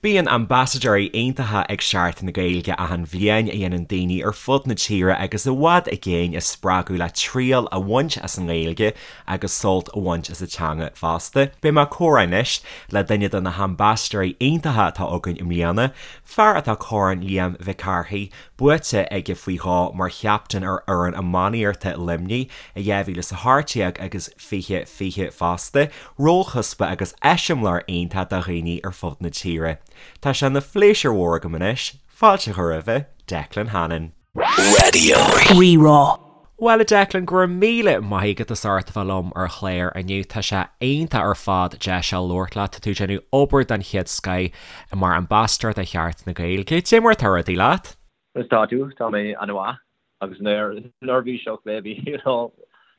Bíonn ambasadóirí iontacha ag Seachtain na Gaeilge achan bhliain a dhéanann daoine ar fud na tíre agus i bhfad i gcéin a spreagadh le triail a bhaint as an nGaeilge agus sult a bhaint as an teanga fosta. Beidh mé ag comhrá anois le duine de na hambasadóirí iontacha atá againn i mbliana, fear atá Corn Liam Mhic Cárthaigh buaite aige faoi dhó mar chaptaen ar fhoireann iománaíochta Luimnigh i 2018 agus 2020 fosta, rólchuspa agus eiseamláir iontach do dhaoine ar fud na tíre. Tá sé ina phléisiúr mhór agam anois fáilte a chur roimhe, Declan Hannon. Raidió Rí-Rá. Bhuel a Declan, go raibh míle maith agat as ucht a bheith liom ar an chlár inniu. Tá sé iontach ar fad deis a labhairt leat. Tá tú ag déanamh obair den chéad scoith mar ambasadóir do Sheachtain na Gaeilge. Cad é mar atá rudaí leat? Conas tá tú? Tá mé an-mhaith agus neirbhíseach maybe, you know,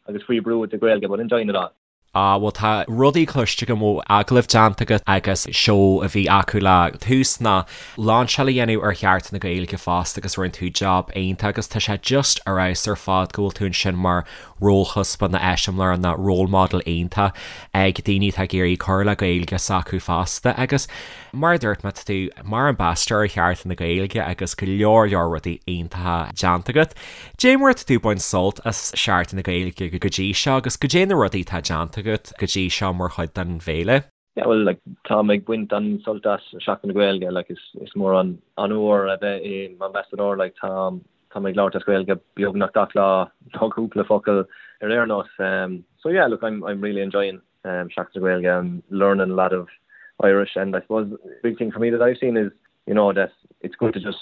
agus faoi brú with the Gaeilge but enjoying it all. Ah bhuel tá rudaí cloiste agam ó agallaimh déanta agat agus seó a bhí acu le tús ná lainseáil a dhéanamh ar Sheachtain na Gaeilge fosta agus rinne tú job iontach agus tá sé just ar fheabhas ar fad go bhfuil tú ansin mar rólchuspa ná eiseamláir ná role model iontach ag daoine atá ag iarraidh cur le Gaeilge s'acu fosta agus Mar a dúirt mé, tá tú mar ambasadóir ar Sheachtain na Gaeilge agus go leor leor rudaí iontacha déanta agat. Dé mar atá tú ag baint sult as Seachtain na Gaeilge go dtí seo agus goidé na rudaí atá déanta agat go dtí seo mar chuid den bhféile? Yeah well like táim ag baint an-sult as Seachtain na Gaeilge like is is mór an onóir a bheith i m'ambasadóir like táim táim ag labhairt as Gaeilge beagnach gach lá nó cúpla focal ar aon nós um so yeah look I'm I'm really enjoying um Seachtain na Gaeilge I'm learning a lot of Irish and I suppose the big thing for me that I've seen is you know that it's good to just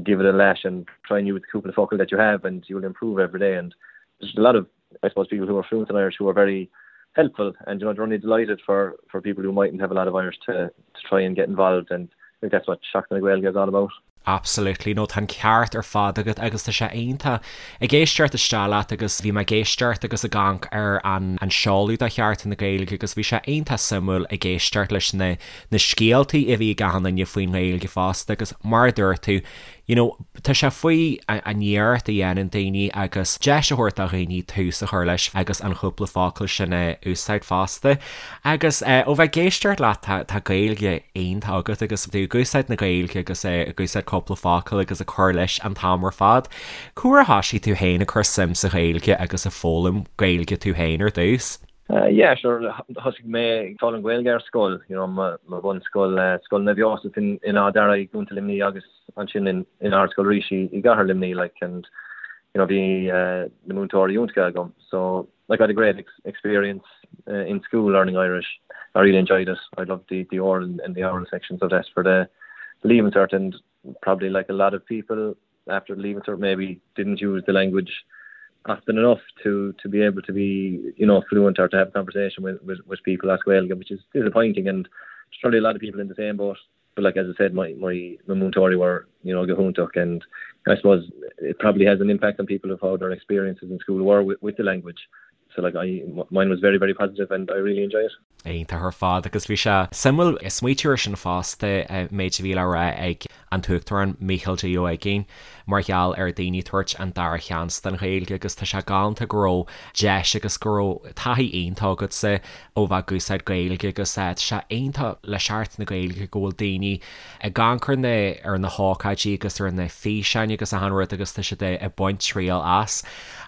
give it a lash and try and use the cúpla focal that you have and you'll improve every day and there's a lot of I suppose people who are fluent in Irish who are very helpful and you know they're only delighted for for people who mightn't have a lot of Irish to to try and get involved and I think that's what Seachtain na Gaeilge is all about. Absolutely, no tá an ceart ar fad agat agus tá sé iontach ag éisteacht isteach leat agus bhí mé ag éisteacht agus ag amharc ar an an seoladh do Sheachtain na Gaeilge agus bhí sé iontach suimiúil ag éisteacht leis na na scéaltaí a bhí ag achan duine faoin nGaeilge fosta agus mar a dúirt tú you know, tá sé faoi an iarracht a dhéanann daoine agus deis a thabhairt do dhaoine tús a chur leis agus an chúpla focal sin a úsáid fosta. Agus ó bheith ag éisteacht leat tá tá Gaeilge iontach agat agus tú ag úsáid na Gaeilge agus ag úsáid cúpla focal agus ag cur leis an t-am ar fad. Cá huair a thoisigh tú féin ag cur suim sa Ghaeilge agus ag foghlaim Gaeilge tú féin ar dtús? Yeah, sure, thosaigh mé ag foghlaim Gaeilge ar scoil, you know, mo bhunscoil, Scoil Naomh Iósaf in Áth Dara i gContae Luimnigh agus ansin in in Ardscoil Rís i gCathair Luimnigh, like, and, you know, bhí na múinteoirí iontacha agam, so, like, I had a great experience in school learning Irish. I really enjoyed it. I loved the the oral and the oral sections of that for the Leaving Cert and probably like a lot of people after Leaving Cert maybe didn't use the language often enough to to be able to be you know fluent or to have a conversation with with, with people as Gaeilge, which is disappointing and there's probably a lot of people in the same boat. But like as I said, my my my múinteoirí were you know go hiontach and I suppose it probably has an impact on people of how their experiences in school were with, with the language. So like I mine was very very positive and I really enjoy it. Iontach ar fad agus bhí sé suimiúil smaoitiú ar sin fosta, méid a bhí le rá ag an tUachtarán Mícheál D. Ó hUiginn mar gheall ar daoine tabhairt an dara sheans don Ghaeilge agus tá sé galánta go raibh deis agus go raibh taithí iontach agatsa ó bheith ag úsáid Gaeilge agus tá sé iontach le Seachtain na Gaeilge go bhfuil daoine ag amharc ar na ar na hócáidí agus ar na físeáin agus achan rud agus tá siad ag baint triail as.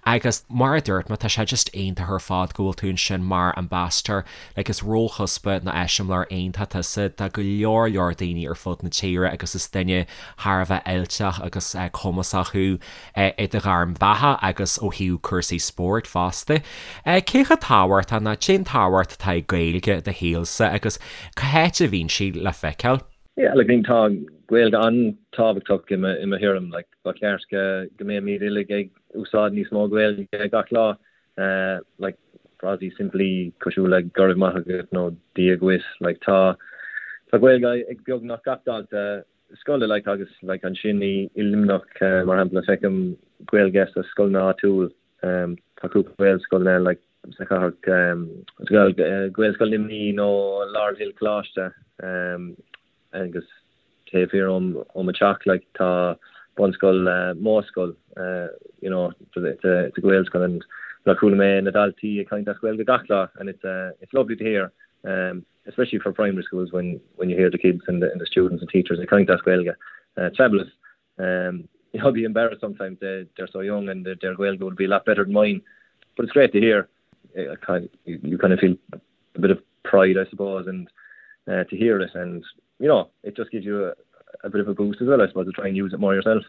Agus mar a dúirt mé tá sé just iontach ar fad go bhfuil tú ansin mar ambassador like is rólchuspa nó eiseamláir iontach tusa do go leor leor daoine ar fud na tíre agus is duine thar a bheith oilteach agus cumasach thú i do ghairm bheatha agus ó thaobh cúrsaí spóirt fosta. Cé chomh tábhachtach nó cén tábhacht atá ag Gaeilge i do shaolsa agus cá háit a bhíonn sí le feiceáil? Yeah, like, tá Gaeilge an-tábhachtach i mo i mo thuairim, like, ba cheart go go mbeimid uilig ag úsáid níos mó Gaeilge gach lá, like, frásaí simplí cosúil le go raibh maith agat nó Dia dhuit, like, tá tá Gaeilge ag beagnach gach dalta scoile like agus like ansin i i Luimneach mar shampla feicim Gaeilge sa scoileanna áitiúil tá cúpla Gaelscoil like sa chathair Gaelscoil Luimnigh nó Laurel Hill Coláiste agus taobh thiar ó ó mo teach like tá bunscoil Modhscoil you know it's a it's a Gaelscoil and like chuala mé na daltaí ag caint as Gaeilge gach lá and it's it's lovely to hear. Um, especially for primary schools when when you hear the kids and the, and the students and teachers ag caint as Gaeilge. Uh, it's fabulous. Um, you know, I'd be embarrassed sometimes they, they're so young and their, their Gaeilge would be a lot better than mine. But it's great to hear. I kind of, you, you kind of feel a bit of pride, I suppose, and uh, to hear it. And, you know, it just gives you a, a bit of a boost as well, I suppose, to try and use it more yourself.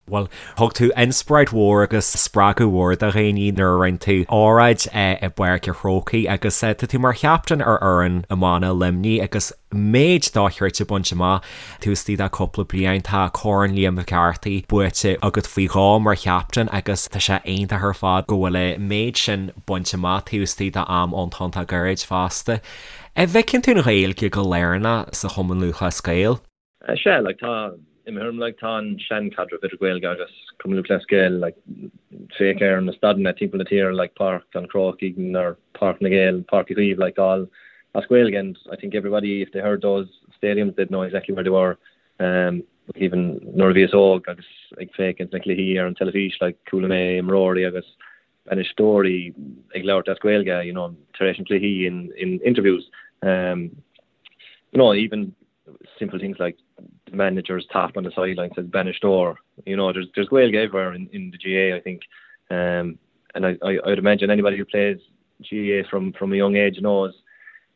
Bhuel, thug tú inspioráid mhór agus spreagadh mhór do dhaoine nuair a rinne tú óráid i bPáirc an Chrócaigh agus tá tú mar chaptaen ar fhoireann iomána Luimnigh agus méid dochreidte bainte amach taobh istigh de cúpla bliain. Tá Corn Liam Mhic Carthaigh buaite agat faoi dhó mar chaptaen agus tá sé iontach ar fad go bhfuil an méid sin bainte amach taobh istigh de am iontach gairid fosta. An bhfeiceann tú an Ghaeilge go lárnach sa Chumann Lúthchleas Gael? Sea, like, tá, i mo thuairim, like, tá an seanchaidreamh idir Gaeilge agus Cumann Lúthchleas Gael, like, féach ar na staideanna timpeall na tíre, like, Páirc an Chrócaigh or Páirc na nGael, Páirc Uí Chaoimh, like, all as Gaeilge and I think everybody, if they heard those stadiums, they'd know exactly where they were. Um, even nuair a bhíos óg agus ag féachaint na cluichí ar an teilifís, like, chuala mé imreoirí agus bainisteoirí ag labhairt as Gaeilge, you know, tar éis an cluichí in, in interviews. Um, you know, even simple things like the manager's top on the sideline says Bainisteoir. You know, there's there's Gaeilge everywhere in, in the GAA, I think. Um, and I, I, I'd imagine anybody who plays GAA from, from a young age knows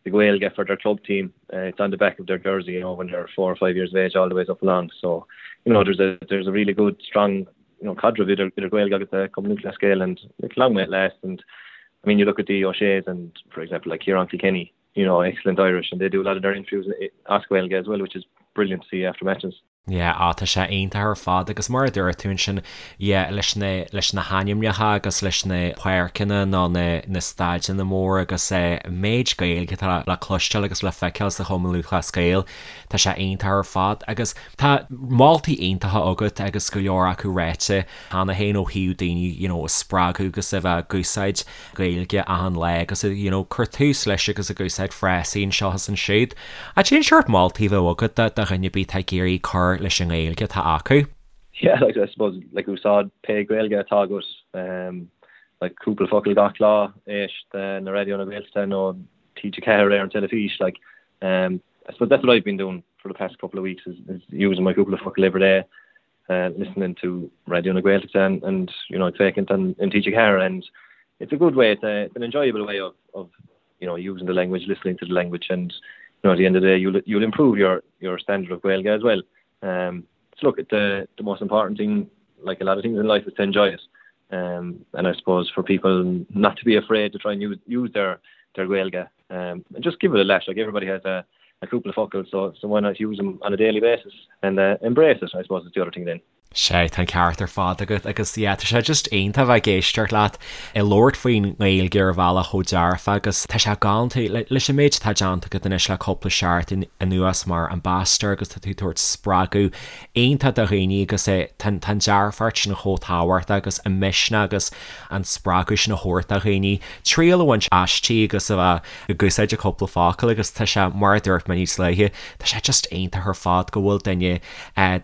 the Gaeilge for their club team. Uh, it's on the back of their jersey, you know, when they're four or five years of age, all the ways up along. So, you know, there's a there's a really good, strong, you know, caidreamh idir idir Gaeilge agus the Cumann Lúthchleas Gael and it's long may it last. And I mean, you look at the O'Shea's and, for example, like Ciarán Kilkenny, you know, excellent Irish and they do a lot of their interviews as Gaeilge as well, which is brilliant to see after matches. Yeah, á tá sé iontach ar fad agus mar a dúirt tú ansin, yeah, leis na, leis na hainmneacha agus leis na páirceanna nó na, na staideanna móra agus eh, méid Gaeilge atá le cloisteáil agus le feiceáil sa Chumann Lúthchleas Gael, tá sé iontach ar fad agus tá moltaí iontacha agat agus go leor acu ráite cheana féin ó thaobh daoine, you know, a spreagadh agus a bheith ag úsáid Gaeilge achan lá agus you know cur tús leis agus ag úsáid frásaí anseo is ansiúd. Cad é an seort moltaí a bheadh agat do dhuine ar bith atá ag iarraidh cur leis an nGaeilge atá acu? Yeah, like I suppose like úsáid pé Gaeilge atá agat um, like cúpla focal gach lá éist le Raidió na Gaeltachta nó TG4 ar an teilifís like um, I suppose that's what I've been doing for the past couple of weeks is, is using my cúpla focal every day uh, listening to Raidió na Gaeltachta and, and you know féachaint an in TG4 and it's a good way it's, a, it's an enjoyable way of, of you know using the language listening to the language and you know at the end of the day you'll you'll improve your your standard of Gaeilge as well um so look at the the most important thing like a lot of things in life is to enjoy it um and I suppose for people not to be afraid to try and use use their their Gaeilge um and just give it a lash like everybody has a a cúpla focal so so why not use them on a daily basis and uh, embrace it I suppose is the other thing then. Sea, tá an ceart ar fad agat agus yeah, tá sé just iontach bheith ag éisteacht leat ag labhairt faoin nGaeilge ar bhealach chomh dearfa agus tá sé galánta leis an méid atá déanta agat anois le cúpla seachtain anuas mar ambassador agus tá tú ag tabhairt spreagadh iontach do dhaoine agus é tá an dearfacht sin chomh tábhachtach agus an misneach agus an spreagadh sin a thabhairt do dhaoine triail a bhaint aisti agus a bheith ag úsáid a cúpla focal agus tá sé, mar a dúirt mé níos luaithe, tá sé just iontach ar fad go bhfuil duine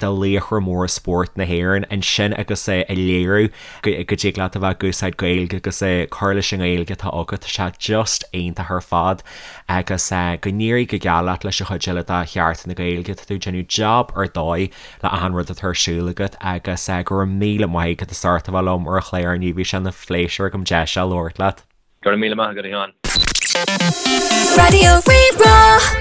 de laochra móra spóirt na hÉireann ansin agus é ag léiriú go dtig leat a bheith ag úsáid Gaeilge agus é cur leis an nGaeilge atá agat, tá sé just iontach ar fad agus go n-éirí go geal leat leis an chuid eile de Sheachtain na Gaeilge, tá tú ag déanamh jab ar dóigh le achan rud atá ar siúl agat agus go raibh míle maith agat as ucht a bheith liom ar an chlár inniu, bhí sé ina phléisiúr agam deis a labhairt leat. Go raibh míle maith agat, a Sheáin. Raidió Rí-Rá.